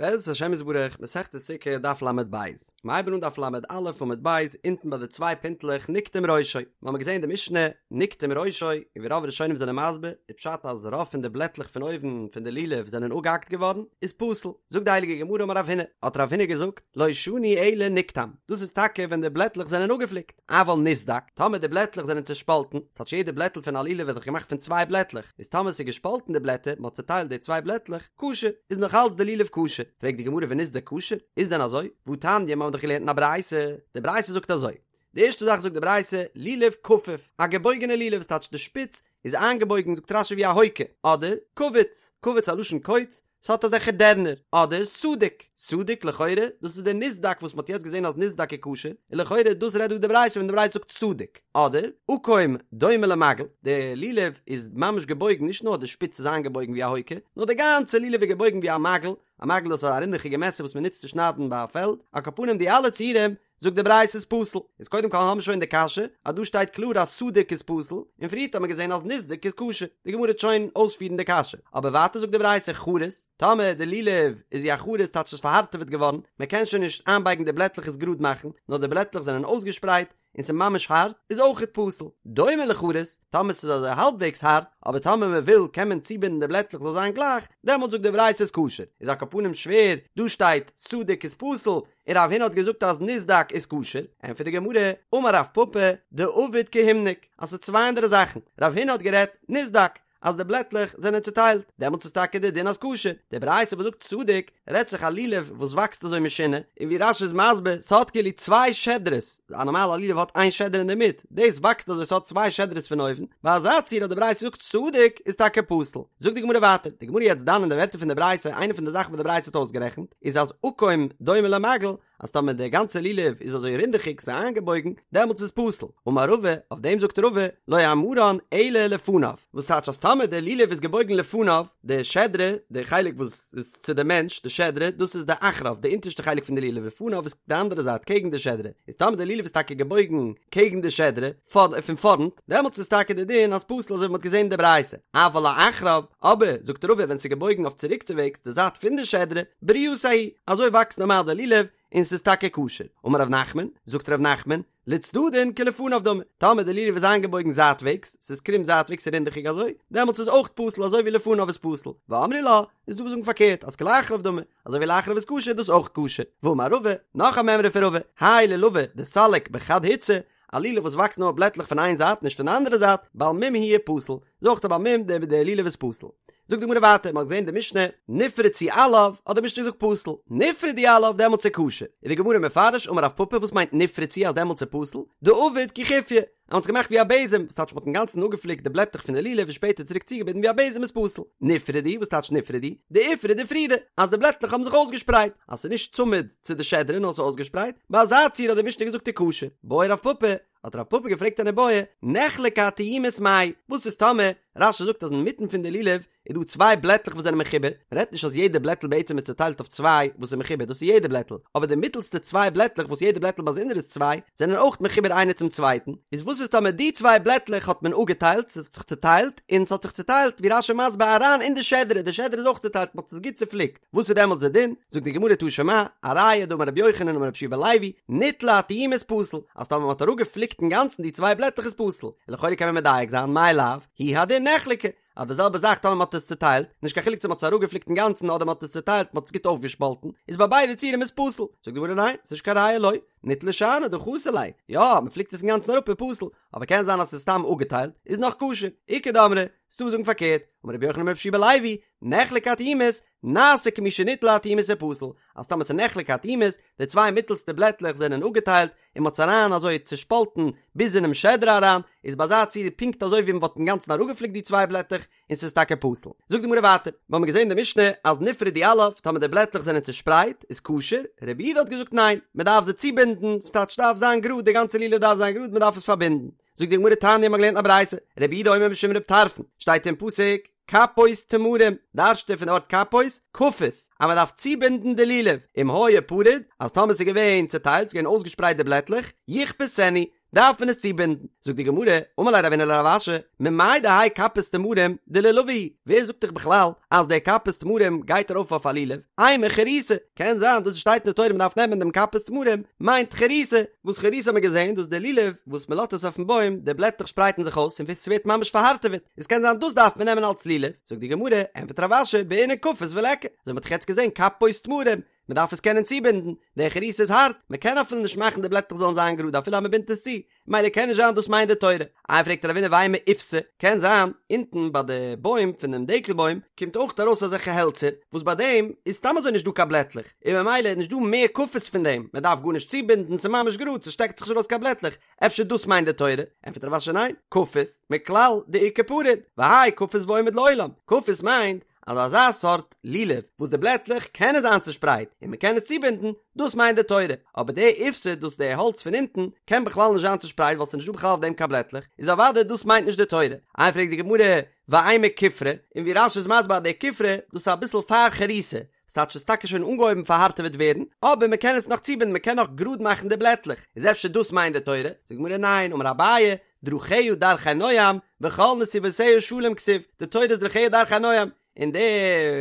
בעזרת השם יתברך, מסכת סוכה, דף ל"ב. מיר הייבן אן דף ל"א עמוד ב', אונטן ביי די צוויי פינטלעך נקטם ראשו. מיר האבן געזען די משנה, נקטם ראשו, און ווי רוב ראשונים זענען מסביר, איז פשט אז רוב פון די בלעטלעך פון אויבן פון די לולב זענען אפגעהאקט געווארן, איז פסול. זאגט די הייליגע גמרא אמר רב הונא, האט רב הונא געזאגט, לא שנו אלא נקטם, דאס איז טאקע ווען די בלעטלעך זענען אפגעפליקט. אבל נסדק, טאמער די בלעטלעך זענען צעשפאלטן, ס'טייטש יעדע בלעטל פון א לולב ווערט דאך געמאכט פון צוויי בלעטלעך, איז טאמער ס'איז געשפאלטן די בלעטער, מ'האט צעטיילט די צוויי בלעטלעך, כשר, איז נאך אלץ די לולב כשר. פרעגט די גמרא ונסדק כשר? איז דען אזוי? והתניא, מ'האט דאך געלערנט אין א ברייתא, די ברייתא זאגט אזוי, די ערשטע זאך זאגט די ברייתא, לולב כפוף, א געבויגענע לולב, ס'טייטש די שפיץ איז איינגעבויגן זאגט רש"י ווי א הויקע, אדער קווץ, קווץ א לשון קוץ, ס'האט אזעלכע דערנער, אדער סדוק, סדוק לכאורה, דאס איז דער נסדק וואס מ'האט יעצט געזען אז נסדק איז כשר, און לכאורה דאס רעדט דא די ברייתא ווען די ברייתא זאגט סדוק, אדער עקום דומה למגל, די לולב איז ממש געבויגן נישט נאר די שפיץ איז איינגעבויגן ווי א הויקע, נאר די גאנצע לולב איז געבויגן ווי א מגל, א מגל דאס איז א רינדעכיגע מעסער וואס מ'נוצט צו שניידן ביי א פעלד, על כל פנים די אלע ציורים זאגט די ברייתא איז פסול, איז קודם כל האבן מיר שוין די קשיא אז דא שטייט קלאר אז סדוק איז פסול, און פריערט האט מען געזען אז נסדק איז כשר, די גמרא וועט שוין אויספירן די קשיא, אבער ווייטער זאגט די ברייתא חרות, טאמער די לולב איז ווי א חרות טייטש ס'איז פארהארטעוועט געווארן, מען קען שוין נישט איינבייגן די בלעטלעך עס גראד מאכן, נאר די בלעטלעך זענען אויסגעשפרייט, און ס'איז ממש הארט, איז אויכעט פסול. דומה לחרות, טאמער ס'איז אזוי האלבוועגס הארט, אבער טאמער מען וויל קען מען צובינדן די בלעטלעך זאל זיין גלייך, דעמאלט זאגט די ברייתא איז כשר. איז על כל פנים שווער, דא שטייט סדוק איז פסול, און רב הונא האט געזאגט אז נסדק איז כשר, ענטפערט די גמרא, אמר רב פפא, דעביד כהימנק, אז ס'איז צוויי אנדערע זאכן, רב הונא האט גערעדט נסדק, אז די בלעטלעך זענען צוטיילט, דעמאלטס איז טאקע די דין אז כשר, די ברייתא וואס זאגט סדוק, רעדט זיך א לולב וואס וואקסט אזוי משונה, און ווי רש"י איז מסביר, ס'האט כאילו צוויי שדרות, א נארמאלע לולב האט איין שדרה אינדערמיט, דאס וואקסט אזוי ס'האט צוויי שדרות פון אויבן, ביי אזא ציור האט די ברייתא געזאגט סדוק איז טאקע פסול. זאגט די גמרא ווייטער, די גמרא יעצט דן אין די ווערטער פון די ברייתא, איינע פון די זאכן וואס די ברייתא האט אויסגערעכנט, איז אז עקום דומה למגל, אז טאמער די גאנצע לולב איז אזוי רינדעכיג ס'איז איינגעבויגן, דעמאלטס איז פסול. אמר רבא, אויף דעם זאגט רבא, לא אמרן אלא לפניו, וואס טייטש אז טאמער די לולב איז געבויגן לפניו, די שדרה, די חלק וואס איז צו די מענטש, די שדרה, דאס איז די אחריו, די אונטערשטע חלק פון די לולב, לפניו איז די אנדערע זייט, קעגן די שדרה, איז טאמער די לולב איז טאקע געבויגן קעגן די שדרה, פון פארנט, דעמאלטס איז טאקע די דין אז פסול אזוי ווי מ'האט געזען אין די ברייתא, אבל לאחריו, אבער, זאגט רבא, ווען ס'איז געבויגן אויף צוריקצוועגס, די זייט פון די שדרה, ברייתיה היא, אזוי וואקסט נארמאל די לולב, און ס'איז טאקע כשר. אמר ר' נחמן, זאגט ר' נחמן, לצדדין כלפניו דמי, טאמער די לולב איז איינגעבויגן זייטוועגס, ס'איז קרום זייטוועגס און רינדעכיג אזוי, דעמאלטס איז אויך פסול אזוי ווי לפניו איז פסול, ואמרי לה, איז דא וואס זאגן פארקערט אז כלאחריו דמי, אזוי ווי לאחריו איז כשר איז דאס אויך כשר, ואמר רבא, נאך א מימרא פון רבא, האי לולבא דסליק בחד הוצא, א לולב וואס וואקסט נאר בלעטלעך פון איין זייט נישט פון די אנדערע זייט, בעל מום הוא ופסול, איז אויך א בעל מום די די לולב איז פסול. זאגט די גמרא ווייטער, מ'האט געזען די משנה, נפרצו עליו, האט די משנה געזאגט פסול, נפרדו עליו דעמאלטס איז כשר, איז די גמרא מפרש אמר רב פפא וואס מיינט נפרצו אז דעמאלטס איז פסול, דעביד כי חופיא, אז מ'האט עס געמאכט ווי א בעזעם, וואס טייטש מ'האט אינגאנצן אפגעפליקט די בלעטלעך פון די לולב און שפעטער צוריק צוגעבינדן ווי א בעזעם איז פסול. נפרדו, וואס טייטש נפרדו? דאיפרוד אפרודי, אז די בלעטלעך האבן זיך אויסגעשפרייט, אז ס'איז נישט צמוד צו די שדרה נאר ס'איז אויסגעשפרייט, ביי אזא ציור האט די משנה געזאגט איז כשר. בעי רב פפא, האט רב פפא געפרעגט אן איבעיא, נחלקו התיומות מאי, וואס איז טאמער רש"י זאגט אז אינמיטן פון די לולב איז דא צוויי בלעטלעך וואס זענען מחובר, מען רעדט נישט אז יעדע בלעטל בעצם איז צוטיילט אויף צוויי וואס איז מחובר, דאס איז יעדע בלעטל, אבער די מיטלסטע צוויי בלעטלעך וואס יעדע בלעטל באזונדער איז צוויי, זענען אויך מחובר איינער צום צווייטן, איז וואס איז טאמער די צוויי בלעטלעך האט מען אפגעטיילט, ס'האט זיך צוטיילט, און ס'האט זיך צוטיילט ווי רש"י מסביר אריין אין די שדרה, די שדרה איז אויך צוטיילט, מ'האט עס גוט צופליקט, וואס איז דעמאלטס די דין? זאגט די גמרא תא שמע, א ראיה דאמר רבי יוחנן אמר רבי יהושע בן לוי, ניטלו התיומות פסול, אז טאמער מ'האט אראפגעפליקט אינגאנצן די צוויי בלעטלעך איז פסול, און לכאורה קען מען מדייק זיין, מאי לאו, הוא הדין נחלקו, אז די זעלבע זאך טאמער מ'האט עס צוטיילט, נישט קיין חילוק צו מ'האט עס אראפגעפליקט אינגאנצן אדער מ'האט עס צוטיילט מ'האט עס גוט אויפגעשפאלטן, איז ביי ביידע ציורים איז פסול. זאגט די גמרא ניין, ס'נישט קיין ראיה לא, ניטלו שאני דחסר ליה, יא, מ'פליקט עס אינגאנצן אראפ איז פסול, אבער קען זיין אז ס'איז סתם אפגעטיילט, איז נאך כשר. איכא דאמרי, ס'דא וואס זאגן פארקערט, אמר רבי יוחנן אמר רבי יהושע בן לוי, נחלקו התיומות, נעשה כמי שניטלו התיומות ופסול, אז טאמער ס'איז נחלקו התיומות, די צוויי מיטלסטע בלעטלעך זענען אפגעטיילט, און מ'האט עס אריין אזוי צושפאלטן ביז אינעם שדרה אריין, איז ביי אזא ציור פונקט אזוי ווי מ'וואלט אינגאנצן אראפגעפליקט די צוויי בלעטלעך, און ס'איז טאקע פסול. זאגט די גמרא ווייטער, מיר האבן געזען אין די משנה אז נפרדו עליו, טאמער די בלעטלעך זענען צושפרייט, איז כשר, רבי יהודה האט געזאגט ניין, מ'דארף זיי צובינדן, ס'טייטש ס'דארף זיין גראד, די גאנצע לולב דארף זיין גראד, מ'דארף עס פארבינדן. זאגט די גמרא תניא מ'האט געלערנט א ברייתא, רבי יהודה אומר משום רבי טרפון, שטייט אין פסוק, כפות תמרים, דרש'ט ער פון די ווארט כפות, כפות, אז מען דארף צובינדן די לולב, אם היה פרוד, אז טאמער ס'איז געווען צוטיילט, ס'איז געווען אויסגעשפרייט די בלעטלעך, יכפתנו, דארף מען עס צובינדן. זאגט די גמרא, אמר ליה רבינא לרב אשי, ממאי דהאי כפות תמרים דלולבא הוא, ווער זאגט דיך בכלל אז די כפות תמרים גייט ארויף אויף א לולב, אימא חריתא, קען זיין דאס וואס שטייט אין די תורה מען דארף נעמען דעם כפות תמרים מיינט חריתא, וואס חריתא האט מען געזען דאס איז די לולב וואס מען לאזט עס אויפן בוים די בלעטלעך שפרייטן זיך אויס און ס'ווערט ממש פארהארטעוועט, איז קען זיין דאס דארף מען נעמען אלס לולב, זאגט די גמרא, ענטפערט רב אשי, בעינן כפות וליכא, אזוי מ'האט דאך יעצט געזען כפות תמרים, מען דארף עס קענען צובינדן, די חריתא איז הארט, מען קען אפילו נישט מאכן די בלעטלעך זאלן זיין גראד אפילו אז מען בינדט עס צו, מילא קען נישט זיין דאס מיינט די תורה. איי פרעגט רבינא ואימא איפתא, קען זיין אונטן ביי די בוים פון דעם דקל בוים קומט אויך ארויס אזעלכע העלצער וואס ביי דעם איז סתם אזוי נישט דא קיין בלעטלעך און ממילא איז נישט דא מער כפות פון דעם, מען דארף גארנישט צובינדן ס'איז ממש גראד ס'שטעקט זיך נישט ארויס קיין בלעטלעך, אפשר דאס מיינט די תורה? ענטפערט רב אשי ניין, כפות, מכלל דאיכא פרוד, והאי כפות ועומד לעולם, כפות מיינט אז אזא סארט לולב וואס די בלעטלעך קענען זיין צושפרייט און מען קען עס צובינדן, דאס מיינט די תורה, אבער די איפתא דאס די האלץ פון אונטן קען בכלל נישט זיין צושפרייט ווייל ס'איז נישט דא בכלל אויף דעם קיין בלעטלעך, איז אוודאי דאס מיינט נישט די תורה. איי פרעגט די גמרא, ואימא כופרא, און ווי רש"י איז מסביר אז די כופרא דאס איז אביסל פאר חריתא, ס'טייטש ס'איז טאקע שוין אנגעהויבן פארהארטעוועט ווערן, אבער מען קען עס נאך צובינדן מען קען נאך גראד מאכן די בלעטלעך, איז אפשר דאס מיינט די תורה? זאגט די גמרא ניין, אמר אביי, דרכיה דרכי נועם, וכל נתיבותיה שלום כתיב, די תורה איז דרכיה דרכי נועם, און די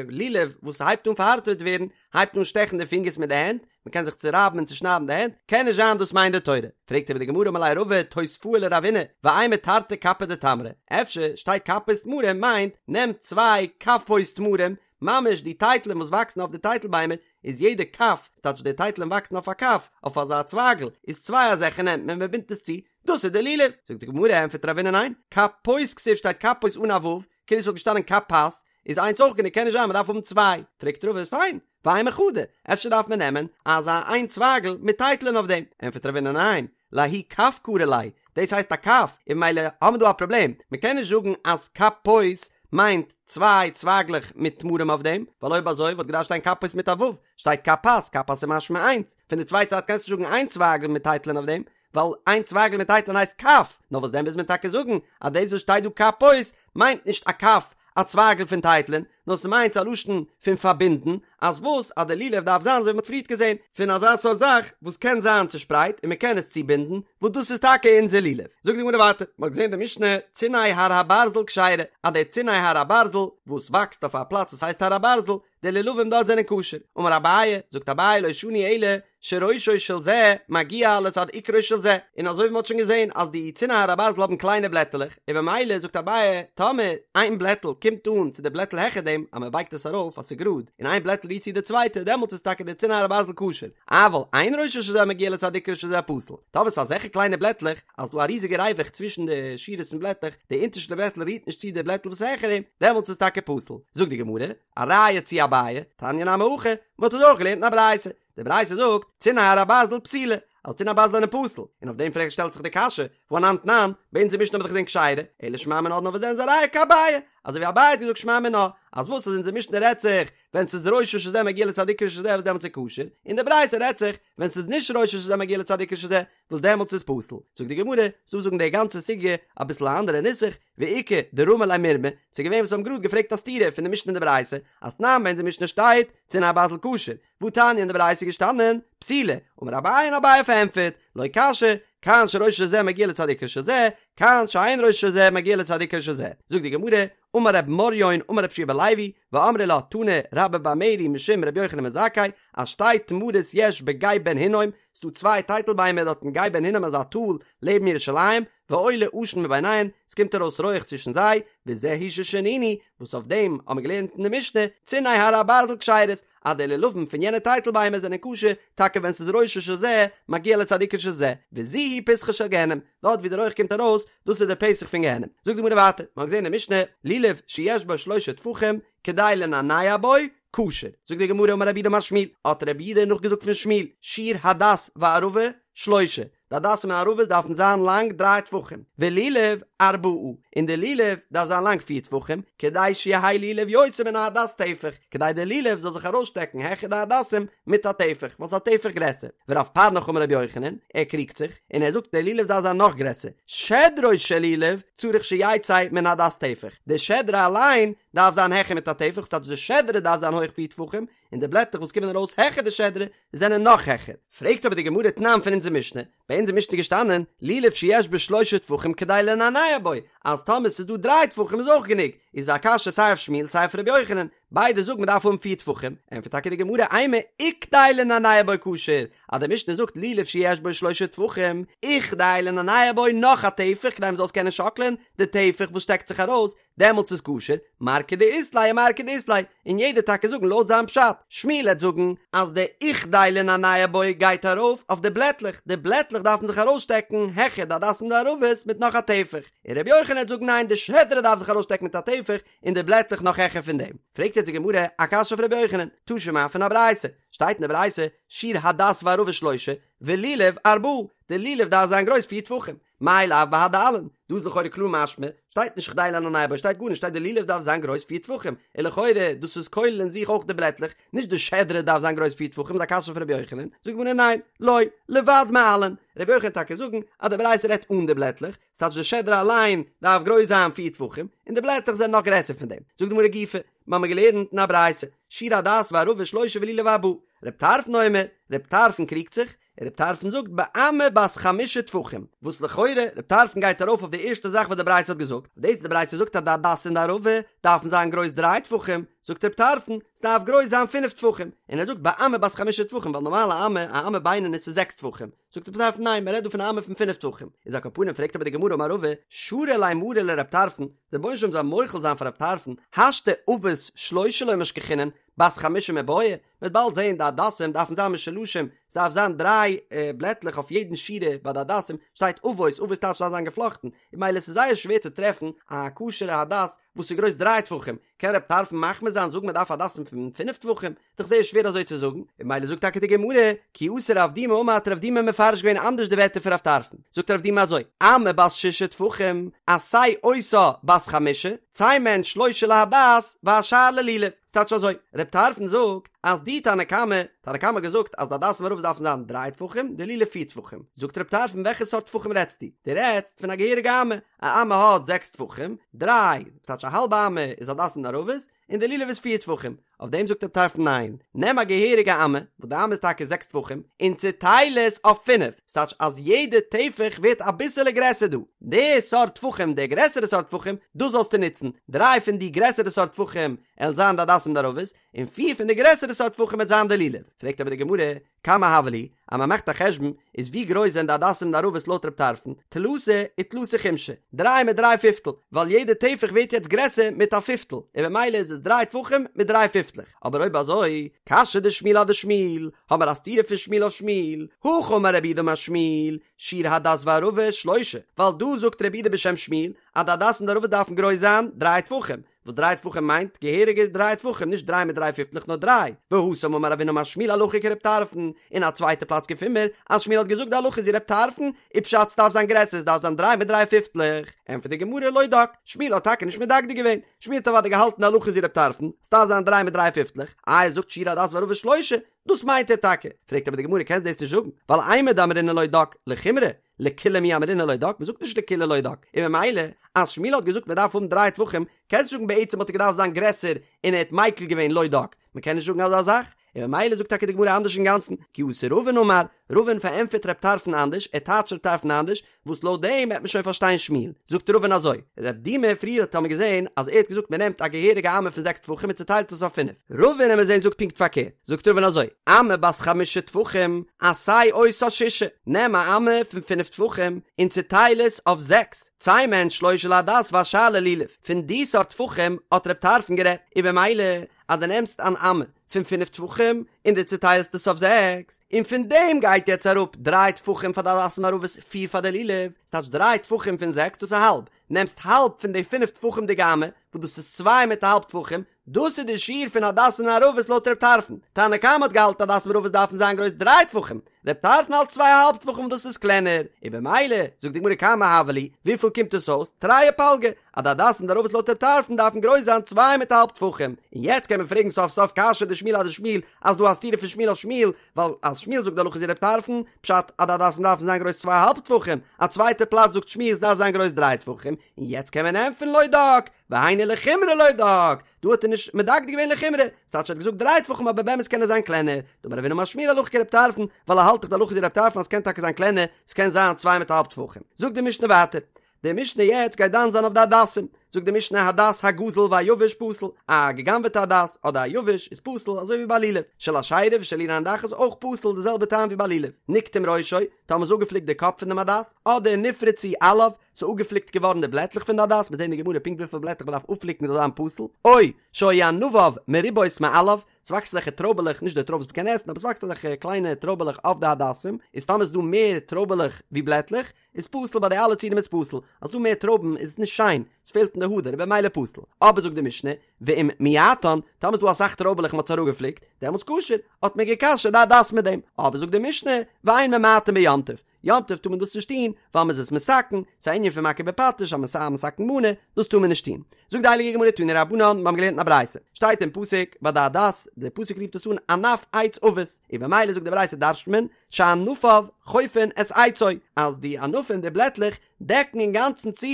לולב וואס הייבט אן פארהארטעוועט ווערן, הייבט אן שטעכן די פינגערס מיט די הענט, מען קען זיך צורייבן און צושניידן די הענט, קען נישט זיין דאס מיינט די תורה. פרעגט אבער די גמרא אמר ליה רבא תוספאה לרבינא, ואימא תרתי כפי דתמרי, אפשר שטייט כפות תמרים מיינט נעם צוויי כפות תמרים, ממש די טייטלען וואס וואקסן אויף די טייטל ביימער, איז יעדע כף, ס'טייטש די טייטלען וואקסן אויף א כף, אויף אזא צווייגל, איז צוויי אזעלכע נעמט מען מען בינדט עס צו, דאס איז די לולב! זאגט די גמרא, ענטפערט רבינא ניין, כפות כתיב שטייט כפות אן א ו', כאילו ס'וואלט געשטאנען כפת, איז איינס אויך גענוג קען נישט זיין מ'דארף האבן צוויי, פרעגט רבא איז פיין, ואימא חדא, אפשר דארף מען נעמען אזא איין צווייגל מיט טייטלען אויף דעם, ענטפערט רבינא ניין, לההוא כף קרי ליה, דאס הייסט א כף, און ממילא האבן מיר דא א פראבלעם, מ'קען נישט זאגן אז כפות מיינט צוויי צווייגלעך מיט תמרים אויף דעם, ווייל אויב אזוי וואלט געדארפט שטיין כפות מיט א ו', שטייט כפת, כפת איז משמע איינס, פון די צווייטע זייט קענסטו נישט זאגן איין צווייגל מיט טייטלען אויף דעם, ווייל איין צווייגל מיט טייטלען הייסט כף, נאר וואס דען מוז מען טאקע זאגן אז דאס וואס שטייט דא כפות מיינט נישט א כף, א צווייגל פון טייטלען, נאר ס'מיינט ס'א לשון פון פארבינדן, אז וואס אז די לולב דארף זיין אזוי ווי מ'האט פריערט געזען, פון אזא סארט זאך וואס קען זיין צושפרייט און מ'קען עס צובינדן, וואס דאס איז טאקע אונזער לולב. זאגט די גמרא ווייטער, מ'האט געזען די משנה, ציני הר הברזל כשרה, אז די ציני הר הברזל וואס וואקסט אויף א פלאץ וואס הייסט הר הברזל, די לולבים דארט זענען כשר. אמר אביי, זאגט אביי לא שנו אלא שראשו של זה מגיע לצד עיקרו של זה, און אזוי ווי מ'האט שוין געזען אז די ציני הר הברזל האבן קליינע בלעטעלעך, און במילא זאגט אביי טאמער איין בלעטל קומט אן צו די בלעטל העכער דעם אז מ'בייגט עס ארויף אז ס'איז גראד, און איין בלעטל רירט צו די צווייטע דעמאלטס איז טאקע די ציני הר הברזל כשר, אבל אין ראשו של זה מגיע לצד עיקרו של זה פסול, טאמער ס'איז אזעלכע קליינע בלעטלעך אז ס'דא א ריזיגע ריווח צווישן די שורות פון בלעטלעך, די אונטערשטע בלעטל רירט נישט צו די בלעטל וואס איז העכער אים, דעמאלטס איז טאקע פסול. זאגט די גמרא, א ראיה צו אביי, תניא נמי הכי, מ'האט עס אויך געלערנט אין א ברייתא, די ברייתא זאגט, ציני הר הברזל פסולה, אז ציני הברזל זענען פסול, און אויף דעם פרעגט שטעלט זיך די קשיא, והא אנן תנן, ביי אונזער משנה האט מען דאך געזען כשרה, אלא שמע מינה נאר וואס דען איז א ראיה כאביי, אזוי ווי אביי האט געזאגט שמע מינה, אז וואס אז אונזער משנה רעדט זיך ווען ס'איז ראשו של זה מגיע לצד עיקרו של זה וואס דעמאלטס איז כשר, און די ברייתא רעדט זיך ווען ס'איז נישט ראשו של זה מגיע לצד עיקרו של זה, וואס דעמאלטס איז פסול. זאגט די גמרא, ס'דא זאגן די גאנצע סוגיא אביסל א אנדערע נוסח, ואיכא דרמי ליה מירמא, ס'איז געווען וואס האבן גראד געפרעגט א סתירה פון די משנה און די ברייתא, אז תנן ביי אונזער משנה שטייט, ציני הברזל כשר, והתניא אין די ברייתא איז געשטאנען, פסולה, אמר אביי און אביי פארענטפערט, לא קשיא, כאן שראשו של זה מגיע לצד עיקרו של זה, כאן שאין ראשו של זה מגיע לצד עיקרו של זה. זאגט די גמרא, אמר רב מריון אמר רבי יהושע בן לוי, ואמרי לה תנא רבה בר מרי משום רבי יוחנן בן זכאי, אז שתי תמרות יש בגיא בן הינום, ס'דא צוויי טייטל ביימער דארט אין גיא בן הינום אזא טאל לעבן ירושלים, ועולה עשן מביניהן, ס'קומט ארויס רויעך צווישן זיי, וזה הוא ששנינו, וואס אויף דעם האבן מיר געלערנט אין די משנה, ציני הר הברזל כשרות, אז די לולבים פון יענע טייטל ביימער זענען כשר, טאקע ווען ס'איז ראשו של זה מגיע לצד עיקרו של זה, וזו היא פתחו של גיהנום, דארט ווי די רויעך קומט ארויס, דאס איז די פתח פון גיהנום. זאגט די גמרא ווייטער, מ'האט געזען אין די משנה, לולב שיש בו שלושה טפחים, כדי לנענע בו, כשר. זאגט די גמרא אמר רב יהודה אמר שמואל, האט רב יהודה נאכגעזאגט פון שמואל, שיעור הדס וערבה שלושה, די הדסים און ערבות דארפן זיין לאנג דריי טפחים, ולולב ארבעה, און די לולב דארף זיין לאנג פיר טפחים, כדי שיהא לולב יוצא מן ההדס טפח, כדי די לולב זאל זיך ארויסשטעקן העכער די הדסים מיט א טפח, ווייל ס'איז א טפח גרעסער. ורב פרנך אמר רבי יוחנן, ער קריגט זיך, און ער זאגט די לולב דארף זיין נאך גרעסער, שדרו של לולב צריך שיצא מן ההדס טפח, די שדרה אליין דארף זיין העכער מיט א טפח, ס'טייטש די שדרה דארף זיין הויך פיר טפחים, און די בלעטער וואס קומען ארויס העכער די שדרה זענען נאך העכער. פרעגט אבער די גמרא תנן פון אונזער משנה, ביי אונז אין משנה געשטאנען, לולב שיש בו שלשה טפחים כדי לנענע בו, אז טאמער ס'איז דא דריי טפחים איז אויך גענוג, איז א קשיא סיי אויף שמואל סיי אויף ר' יוחנן, ביידע זאגן מ'דארף האבן פיר טפחים, ענטפערט טאקע די גמרא אימא וכדי לנענע בו כשר, אז די משנה זאגט לולב שיש בו שלשה טפחים, וכדי לנענע בו נאך א טפח כדי מ'זאל עס קענען שאקלען, די טפח וואס שטעקט זיך ארויס, דעמאלטס איז כשר, מר כדאית ליה ומר כדאית ליה, און יעדער טאקע זאגן לויט זיין פשט, שמואל העט זאגן אז די וכדי לנענע בו גייט ארויף אויף די בלעטלעך, די בלעטלעך דארפן זיך ארויסשטעקן העכער די הדסים די ערבות מיט נאך א טפח, און רבי יוחנן העט זאגן ניין די שדרה דארף זיך ארויסשטעקן מיט א טפח און די בלעטלעך נאך העכער פון דעם. פרעגט יעצט די גמרא א קשיא אויף רבי יוחנן, תא שמע פון א ברייתא, שטייט אין די ברייתא שיעור הדס וערבה שלושה ולולב ארבעה, די לולב דארף זיין גרויס פיר טפחים, מאי לאו בהדי עלין, דא איז לכאורה קלאר משמע, שטייט נישט כדי לנענע בו, שטייט גארנישט, שטייט די לולב דארף זיין גרויס פיר טפחים, און לכאורה דאס איז כולל אין זיך אויך די בלעטלעך, נישט די שדרה דארף זיין גרויס פיר טפחים, איז א קשיא פון רבי יוחנן, זאגט די גמרא ניין, לא, לבד מעלין, רבי יוחנן טאקע זאגן אז די ברייתא רעדט אן די בלעטלעך, ס'טייטש די שדרה אליין דארף גרויס זיין פיר טפחים, און די בלעטלעך זענען נאך גרעסער פון דעם, זאגט די גמרא גופא, מ'האמיר געלערנט אין א ברייתא, שיעור הדס וערבה שלושה ולולב ארבעה, רב טרפון אומר, רב טרפון קריגט זיך, רב טרפון זאגט באמה בת חמשה טפחים, וואס לכאורה רב טרפון גייט ארויף אויף די ערשטע זאך וואס די ברייתא האט געזאגט, דאס די ברייתא זאגט אז די הדס און די ערבה דארפן זיין גרויס דריי טפחים, זאגט רב טרפון ס'דארף גרויס זיין פינף טפחים, און ער זאגט באמה בת חמשה טפחים ווייל נארמאל א אמה, א אמה בינונית איז זעקס טפחים, זאגט רב טרפון ניין מ'רעדט דא פון א אמה פון פינף טפחים, איז על כל פנים פרעגט אבער די גמרא אמר רבא שרי ליה מריה לרב טרפון, דער רבונו של עולם זאל מוחל זיין פאר רב טרפון, השתא עבות שלשה לא משכחינן, בת חמשה מיבעיא, מ'וועט באלד זעהן די הדסים דארפן זיין משולשים, ס'דארף זיין דריי בלעטלעך אויף יעדן שורה ביי די הדסים, שטייט עבות, עבות טייטש ס'דארף זיין געפלאכטן, און ממילא ס'איז זייער שווער צו טרעפן א כשר'ע הדס וואס איז גרויס דריי טפחים, קען רב טרפון מחמיר זיין זאגן מ'דארף הדסים פון פינף טפחים? דאך זייער שווער אזוי צו זאגן, און ממילא זאגט טאקע די גמרא, כי אתא רב דימי אמר האט רב דימי מפרש געווען אנדערש די ווערטער פון רב טרפון, זאגט רב דימי אזוי, אמה בת שישה טפחים, עשה אותה בת חמשה, צא מהן שלשה להדס והשאר ללולב. ס'טייטש אזוי, רב טרפון זאגט אז די תנא קמא, תנא קמא האט געזאגט אז די הדסים וערבות דארפן זיין דריי טפחים, די לולב פיר טפחים. זאגט רב טרפון וועלכע סארט טפחים רעדסטו? דו רעדסט פון א געהעריגע אמה, א אמה האט זעקס טפחים, דריי, ס'טייטש א האלבע אמה איז הדסים און ערבות, און די לולב איז פיר טפחים. אויף דעם זאגט רב טרפון ניין, נעם א געהעריגע אמה, וואס די אמה איז טאקע זעקס טפחים, און צוטייל עס אויף פינף, ס'טייטש אז יעדע טפח ווערט אביסעלע גרעסער דא, די סארט טפחים, די גרעסערע סארט טפחים, דאס זאלסטו נוצן, דריי פון די גרעסערע סארט טפחים עלן זיין די הדסים די ערבות, און פיר פון די גרעסערע סארט טפחים וועט זיין די לולב. פרעגט אבער די גמרא, כמה הוו להו, אז מען מאכט א חשבון, איז ווי גרויס זענען די הדסים און די ערבות לויט רב טרפון, תלתא ותלתא חומשי, דריי מיט דריי פיפטל, ווייל יעדע טפח ווערט יעצט גרעסער מיט א פיפטל, און במילא איז עס דריי טפחים מיט דריי פיפטלעך. אבער אויב אזוי, קשיא דשמואל אדשמואל, האמער א סתירה פון שמואל אויף שמואל, הכא אמר רב יהודה אמר שמואל, שיעור הדס וערבה שלושה, ווייל דא זאגט רב יהודה בשם שמואל, אז די הדסים און די ערבות דארפן גרויס זיין דריי טפחים, וואס דריי טפחים מיינט געהעריגע דריי טפחים נישט דריי מיט דריי פיפטלעך נאר דריי, והתם אמר רב הונא אמר שמואל הלכה כרב טרפון, אין א צווייטע פלאץ געפינען מיר אז שמואל האט געזאגט די הלכה איז ווי רב טרפון, איז פשט ס'דארף זיין גרעסער ס'דארף זיין דריי מיט דריי פיפטלעך, ענטפערט די גמרא לא דק, שמואל האט טאקע נישט מדקדק געווען, שמואל האט אוודאי געהאלטן די הלכה איז ווי רב טרפון, ס'דארף זיין דריי מיט דריי פיפטלעך, איי ער זאגט שיעור הדס וערבה שלושה, דאס מיינט ער טאקע, פרעגט אבער די גמרא קענסט דאס נישט זאגן, ווייל אימר דאמרינן לא דק, לחומרא, לקולא מי אמרינן לא דק, מ'זאגט נישט לקולא לא דק, און ממילא אז שמואל האט געזאגט מ'דארף האבן דריי טפחים, קענסט נישט זאגן בעצם האט ער געדארפט זיין גרעסער און ער האט מיקל געווען לא דק, מ'קען נישט זאגן אזא זאך, און ממילא זאגט טאקע די גמרא אנדערש אינגאנצן, כי אתא רבין אמר, רבין פארענטפערט רב טרפון אנדערש, ער טייטשט רב טרפון אנדערש, וואס לויט דעם וועט מען שוין פארשטיין שמואל. זאגט רבין אזוי, רב דימי פריער האט מען געזען אז ער האט געזאגט מען נעמט א געהעריגע אמה פון זעקס טפחים און צוטיילט עס אויף פינף, רבין וועט מען זען זאגט פונקט פארקערט, זאגט רבין אזוי, אמה בת חמשה טפחים, עשה אותה ששה, נעם א אמה פון פינף טפחים און צוטייל עס אויף זעקס, צא מהן שלשה להדס והשאר ללולב, פון די סארט טפחים האט רב טרפון גערעדט, און במילא אז דו נעמסט אן אמה פון פינף טפחים און דו צוטיילסט עס אויף זעקס, און פון דעם גייט יעצט אראפ דריי טפחים פאר די הדסים ערבות פיר פאר די לולב, ס'טייטש דריי טפחים פון זעקס דאס איז האלב, נעמסט האלב פון די פינף טפחים'דיגע אמה, וואס דאס איז צוויי מיט א האלב טפחים, דאס איז די שיעור פון הדסים און ערבות לויט ר' טרפון, תנא קמא האט געהאלטן הדסים ערבות דארפן זיין גרויס דריי טפחים, ר' טרפון האלט צוויי א האלב טפחים וואס דאס איז קלענער, און במילא זאגט די גמרא כמה הוו להו, וויפיל קומט עס אויס, תרי ופלגא, אז די הדסים און ערבות לויט ר' טרפון דארפן גרויס זיין צוויי מיט א האלב טפחים, און יעצט קען מען פרעגן סוף סוף קשיא דשמואל אדשמואל אז דא א סתירה פון שמואל אויף שמואל, ווייל אז שמואל זאגט די הלכה איז ווי ר' טרפון, פשט אז די הדסים דארפן זיין גרויס צוויי א האלב טפחים, א צווייטע פלאץ זאגט שמואל עס דארף זיין גרויס דריי טפחים. און יעצט קען מען ענטפערן לא דק, והיינו לחומרא לא דק, דא האט ער נישט מדקדק געווען לחומרא, ס'טייטש ער האט געזאגט דריי טפחים אבער באמת קען עס זיין קלענער, דאמר רב הונא אמר שמואל הלכה כרב טרפון, ווייל ער האלט דאך די הלכה איז ווי רב טרפון אז ס'קען טאקע זיין קלענער, ס'קען זיין צוויי מיט א האלב טפחים. זאגט די משנה ווייטער, די משנה יעצט גייט דן זיין אויף די הדסים, זאגט די משנה הדס הגזול והיבש פסול, א גע'גנב'עטע הדס אדער א יבש איז פסול אזוי ווי ביי לולב, של אשירה ושל עיר הנדחת אויך פסול די זעלבע טעם ווי ביי לולב, נקטם ראשו, טאמער איז אפגעפליקט די קאפ פון דעם הדס, אדער נפרצו עליו, ס'איז אפגעפליקט געווארן די בלעטלעך פון די הדס, מ'וועט זען אין די גמרא פונקט וויפיל בלעטלעך מ'דארף אפפליקן זאל זיין פסול, או שהיו ענביו מרובות מעליו, ס'וואקסט אזעלכע טרויבעלעך, נישט די טרויב וואס מ'קען עסן, אבער ס'וואקסט אזעלכע קליינע טרויבעלעך אויף די הדסים, איז טאמער איז דא מער טרויבעלעך ווי בלעטלעך, איז פסול ביי די אלע ציורים איז פסול, אז ס'דא מער טרויבן איז עס נישט שיין, עס פעלט אין די הדר, במילא פסול. אבער זאגט די משנה, ואם מיעטן, טאמער איז דא אסאך טרויבעלעך און מ'האט עס אראפגעפליקט, דעמאלטס כשר, האט מען גע'כשר'ט די הדס מיט דעם. אבער זאגט די משנה, ואין ממעטין ביום טוב, יום טוב טאר מען דאס נישט טון, ווייל מ'איז עס מתקן, ס'איז א ענין פון מכה בפטיש, א מתקן מנה, דאס טאר מען נישט טון. זאגט די הייליגע גמרא תנו רבנן, מיר האבן געלערנט אין א ברייתא, שטייט אין פסוק ביי די הדס, די פסוק רופט עס אן ענף עץ עבות, און במילא זאגט די ברייתא דרש'נט מען, שענפיו חופין את עצו, אז די ענפים, די בלעטלעך, דעקן אינגאנצן צו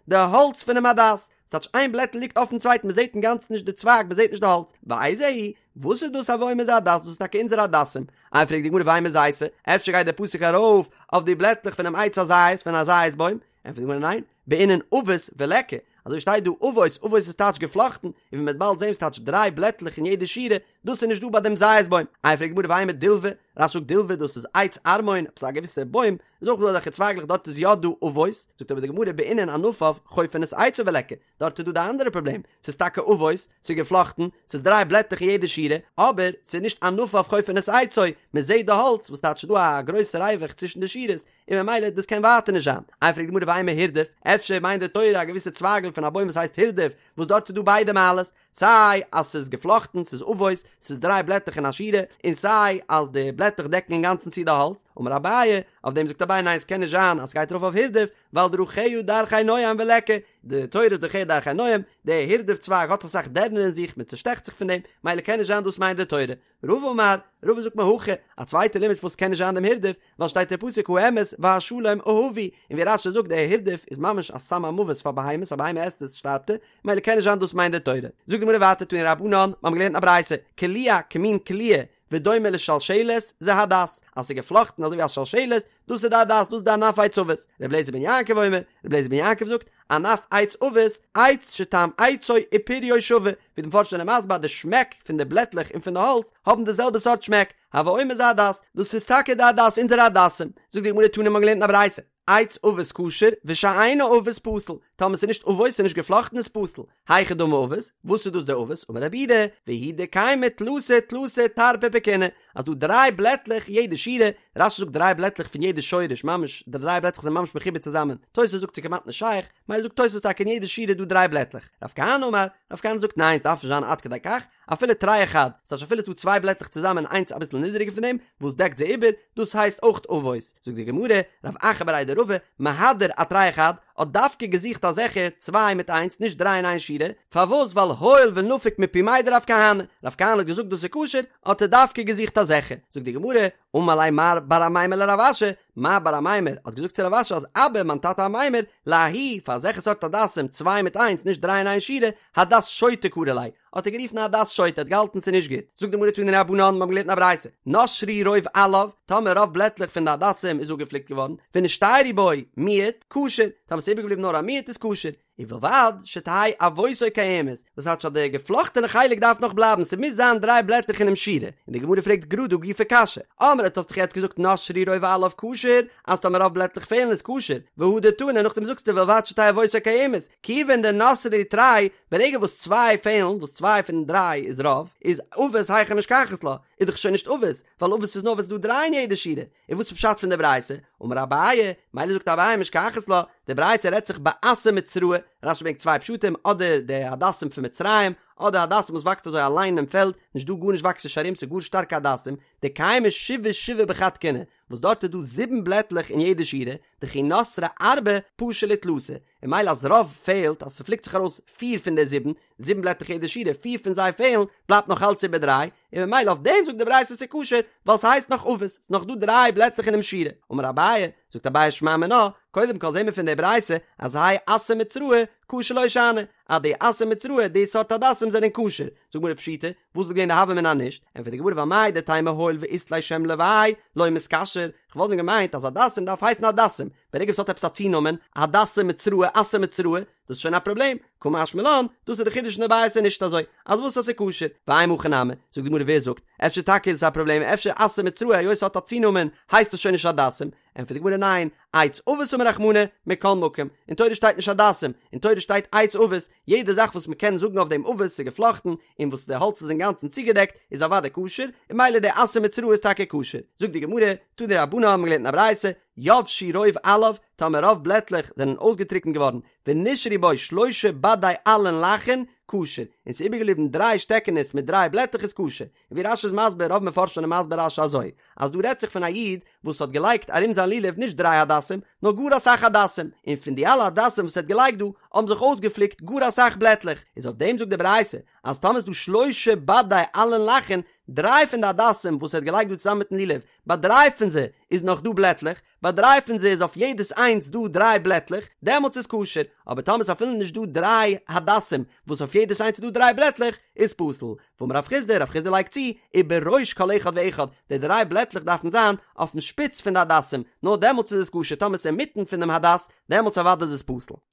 די האלץ פונעם הדס, ס'טייטש איין בלעטל ליגט אויפן צווייטן, מ'זעט אינגאנצן נישט די צווייג, מ'זעט נישט די האלץ, ואיזהו, וואס איז דאס הוי אומר זה הדס, דאס איז טאקע אונזערע הדסים, איי פרעגט די גמרא ואימא זיתא, אפשר גייט דער פסוק ארויף אויף די בלעטלעך פונעם עץ הזית, פון א זית בוים, ענטפערט די גמרא ניין, בעינן עבות וליכא, אזוי שטייט דא עבות, עבות איז טייטש געפלאכטן, און ווי מ'וועט באלד זען ס'טייטש דריי בלעטלעך אין יעדע שורה, דאס איז נישט דא ביי דעם זית בוים. איי פרעגט די גמרא ואימא דילבא, רש"י זאגט דילבא דאס איז עץ ערמון, עפעס א געוויסע בוים, איז אויך דא אזעלכע צווייגלעך דארט איז יא דא עבות, זאגט אבער די גמרא בעינן ענפיו חופין את עצו וליכא, דארט איז דא די אנדערע פראבלעם, ס'איז טאקע עבות, ס'איז געפלאכטן, ס'איז דריי בלעטלעך אין יעדע שורה, אבער ס'איז נישט ענפיו חופין את עצו, מ'זעט די האלץ, וואס טייטש ס'איז דא א גרויסע ריווח צווישן די שורות, און ממילא דאס קען ווייטער נישט זיין. איי פרעגט די גמרא ואימא הירדוף, אפשר מיינט די תורה א געוויסע צווייגל פון א בוים וואס הייסט הירדוף, וואס דארט איז דא ביידע מעלות, סיי אז ס'איז געפלאכטן, ס'איז עבות, ס'איז דריי בלעטלעך אין א שורה, און סיי אז די בלעטלעך דעקן אינגאנצן צו די האלץ, אמר אביי, אויף דעם זאגט אביי ניין ס'קען נישט זיין אז ס'גייט ארויף אויף הירדוף, ווייל דרכיה דרכי נועם וליכא, די תורה איז דרכיה דרכי נועם, די הירדוף צווייג האט אסאך דערנער אין זיך, מען צושטעכט זיך פון דעם, מילא קען נישט זיין דאס מיינט די תורה. רבא אמר, רבא זאגט מהכא, א צווייטע לימוד פארוואס ס'קען נישט זיין דעם הירדוף, ווייל שטייט אין פסוק האמת והשלום אהבו, און ווי רש"י זאגט דער הירדוף איז ממש א סם המוות פאר בהמות, א בהמה עסט עס שטארבט ער, מילא קען נישט זיין דאס מיינט די תורה. זאגט די גמרא ווייטער תנו רבנן, מיר האבן געלערנט א ברייתא, קלוע כמין קליעה ודומה לשלשלת, זה הדס, אז ס'איז געפלאכטן אזוי ווי א שלשלת, דאס איז די הדס, דאס איז די ענף עץ עבות. ר' אליעזר בן יעקב אומר, ר' אליעזר בן יעקב זאגט, ענף עץ עבות, עץ שטעם עצו ופריו שווה, ווי די מפרשים זענען מסביר אז די שמעק פון די בלעטלעך און פון די האלץ האבן די זעלבע סארט שמעק, הוי אומר זה הדס, דאס איז טאקע די הדס, אונזערע הדסים. זאגט די גמרא תנא מ'האט געלערנט אין א ברייתא, עץ עבות כשר ושאינו עבות פסול, טאמער ס'איז נישט עבות ס'איז נישט געפלאכטן איז פסול, היכי דמי עבות, וואס איז דאס די עבות, אמר רב יהודה, והוא דקיימי תלתא תלתא טרפי בכיני, אז דא דריי בלעטלעך יעדע שורה, רש"י זאגט דריי בלעטלעך פון יעדע שורש, ממש די דריי בלעטלעך זענען ממש מחובר צוזאמען, תוס' זאגט ס'איז כמעט נישט שייך, מילא זאגט תוס' טאקע אין יעדע שורה איז דא דריי בלעטלעך, רב כהנא אמר, רב כהנא זאגט ניין ס'דארף נישט זיין עד כדי כך, אפילו תרי וחד, ס'טייטש אפילו ס'דא צוויי בלעטלעך צוזאמען איינס אביסל נידעריגער פון דעם, וואס דעקט זיי איבער, דאס הייסט אויך עבות. זאגט די גמרא, רב אחא בריה דרבא, מהדר אתרי וחד, האט דווקא געזוכט אזעלכע צוויי מיט איינס, נישט דריי אין איין שורה, פארוואס ווייל הואיל ונפיק מפומיה דרב כהנא, רב כהנא האט געזאגט דאס איז כשר, האט ער דווקא געזוכט אזעלכע. זאגט די גמרא, אמר ליה מר בר אמימר לרב אשי, מר בר אמימר האט געזאגט צו רב אשי אז אבא מיין טאטע אמימר, לההוא, פאר אזעלכע סארט הדסים, צוויי מיט איינס, נישט דריי אין איין שורה, הדס שוטה קרי ליה, האט ער גערופן הדס שוטה, האט געהאלטן ס'איז נישט גוט. זאגט די גמרא תנו רבנן, מיר האבן געלערנט אין א ברייתא, נשרו רוב עליו, טאמער רוב בלעטלעך פון די הדסים איז אפגעפליקט געווארן, ונשתיירו בו מיעוט, כשר, טאמער ס'איז איבערגעבליבן נאר א מיעוט איז כשר, ובלבד שתהא עבותו קיימת, וואס טייטש אז די געפלאכטענע חלק דארף נאך בלייבן, ס'מוז זיין דריי בלעטלעך אינעם שורה, און די גמרא פרעגט גראד הא גופא קשיא, אמרת האסט דאך יעצט געזאגט נשרו רוב עליו כשר, אז טאמער רוב בלעטלעך פעלן איז כשר, והדר תני נאכדעם זאגסטו ובלבד שתהא עבותו קיימת, כיוון דנשרו להו תרי, ברגע וואס צוויי פעלן, וואס צוויי פון דריי איז רוב, איז עבות היכי משכחת לה, איז דאך שוין נישט עבות, ווייל עבות איז נאר ווען ס'איז דא דריי אין יעדע שורה, און וואס איז פשט פון די ברייתא? אמר אביי, מילא זאגט אביי משכחת לה, די ברייתא רעדט זיך באסא מצראי, רש"י ברענגט צוויי פשטים, אדער די הדסים פון מצרים, אדער הדסים וואס וואקסט אזוי אליין אין פעלד, נישט דא גארנישט וואקסט נישט ארום ס'איז גאר שטארקע הדסים, דקיימי שבעה שבעה בחד קיני, וואס דארט איז דא זיבן בלעטלעך אין יעדע שורה, דכי נתרי ארבעה פשו להו תלתא, און ממילא אז רוב פעלט, אז ס'פליקט זיך ארויס פיר פון די זיבן, זיבן בלעטלעך יעדע שורה, פיר פון זיי פעלן, בלייבט נאך אלץ איבער דריי, און ממילא אויף דעם זאגט די ברייתא ס'איז כשר, ווייל ס'הייסט נאך עבות, ס'איז נאך דא דריי בלעטלעך אינעם שורה. אמר אביי, זאגט אביי שמע מינה, קודם כל זעהן מיר פון די ברייתא אז האי אסא מצראי כשר לא שאני, אז די אסא מצראי, די סארט הדסים זענען כשר, זאגט די גמרא פשיטא, וואס וואלט געווען די הוה אמינא אז נישט? ענטפערט די גמרא ווייל מהו דתימא הואיל ואית ליה שם לוואי לא מתכשר, כ'וואלט ווען געמיינט אז הדסים דארף הייסן הדסים, ברגע ס'האט עפעס א צונאמען, הדסים מצראי, אסא מצראי, דאס איז שוין א פראבלעם, קא משמע לן, דאס איז די חידוש אין די ברייתא נישט אזוי, אז וואס אז ס'איז כשר, ואימא הכי נמי, זאגט די גמרא ווער זאגט, אפשר טאקע איז עס א פראבלעם, אפשר אסא מצראי היות ס'האט א צונאמען הייסט עס שוין נישט הדסים, ענטפערט די גמרא ניין, עץ עבות אמר רחמנא, מכל מקום, אין תורה שטייט נישט הדסים, אין תורה שטייט עץ עבות, יעדע זאך וואס מ'קען זאגן אויף דעם עבות ס'איז געפלאכטן, און וואס די האלץ איז אינגאנצן צוגעדעקט, איז אוודאי כשר, און ממילא די אסא מצראי איז טאקע כשר. זאגט די גמרא, תנו רבנן האבן געלערנט אין א ברייתא, יבשו רוב עליו, טאמער רוב בלעטלעך זענען אויסגעטריקנט געווארן, ונשארו בו שלשה בדי עלין לחין, כשר, און ס'איז איבערגעבליבן דריי שטעקענעס מיט דריי בלעטלעך איז כשר. און ווי רש"י איז מסביר, רוב מפרשים זענען מסביר רש"י אזוי, אז דא רעדט זיך פון א איד וואס האט געלייגט ארום זיין לולב נישט דריי הדסים, נאר גאר אסאך הדסים, און פון די אלע הדסים וואס ער האט געלייגט דא, האבן זיך אויסגעפליקט גאר אסאך בלעטלעך, איז אויף דעם זאגט די ברייתא, אז טאמער איז דא שלשה בדי עלין לחין, דריי פון די הדסים וואס ער האט געלייגט דא צוזאמען מיטן לולב, ביי דריי פון זיי איז נאך דא בלעטלעך, ביי דריי פון זיי איז אויף יעדעס איינס דא דריי בלעטלעך, דעמאלטס איז כשר, אבער טאמער איז אפילו נישט דא דריי הדסים וואס אויף יעדעס איינס איז דא דריי בלעטלעך, איז פסול. ואמר רב חסדא, רב חסדא לייגט צו, ובראש כל אחד ואחד, די דריי בלעטלעך דארפן זיין אויפן שפיץ פון די הדסים, נאר דעמאלטס איז עס כשר, טאמער עס איז אינמיטן פונעם הדס, דעמאלטס אוודאי איז עס פסול.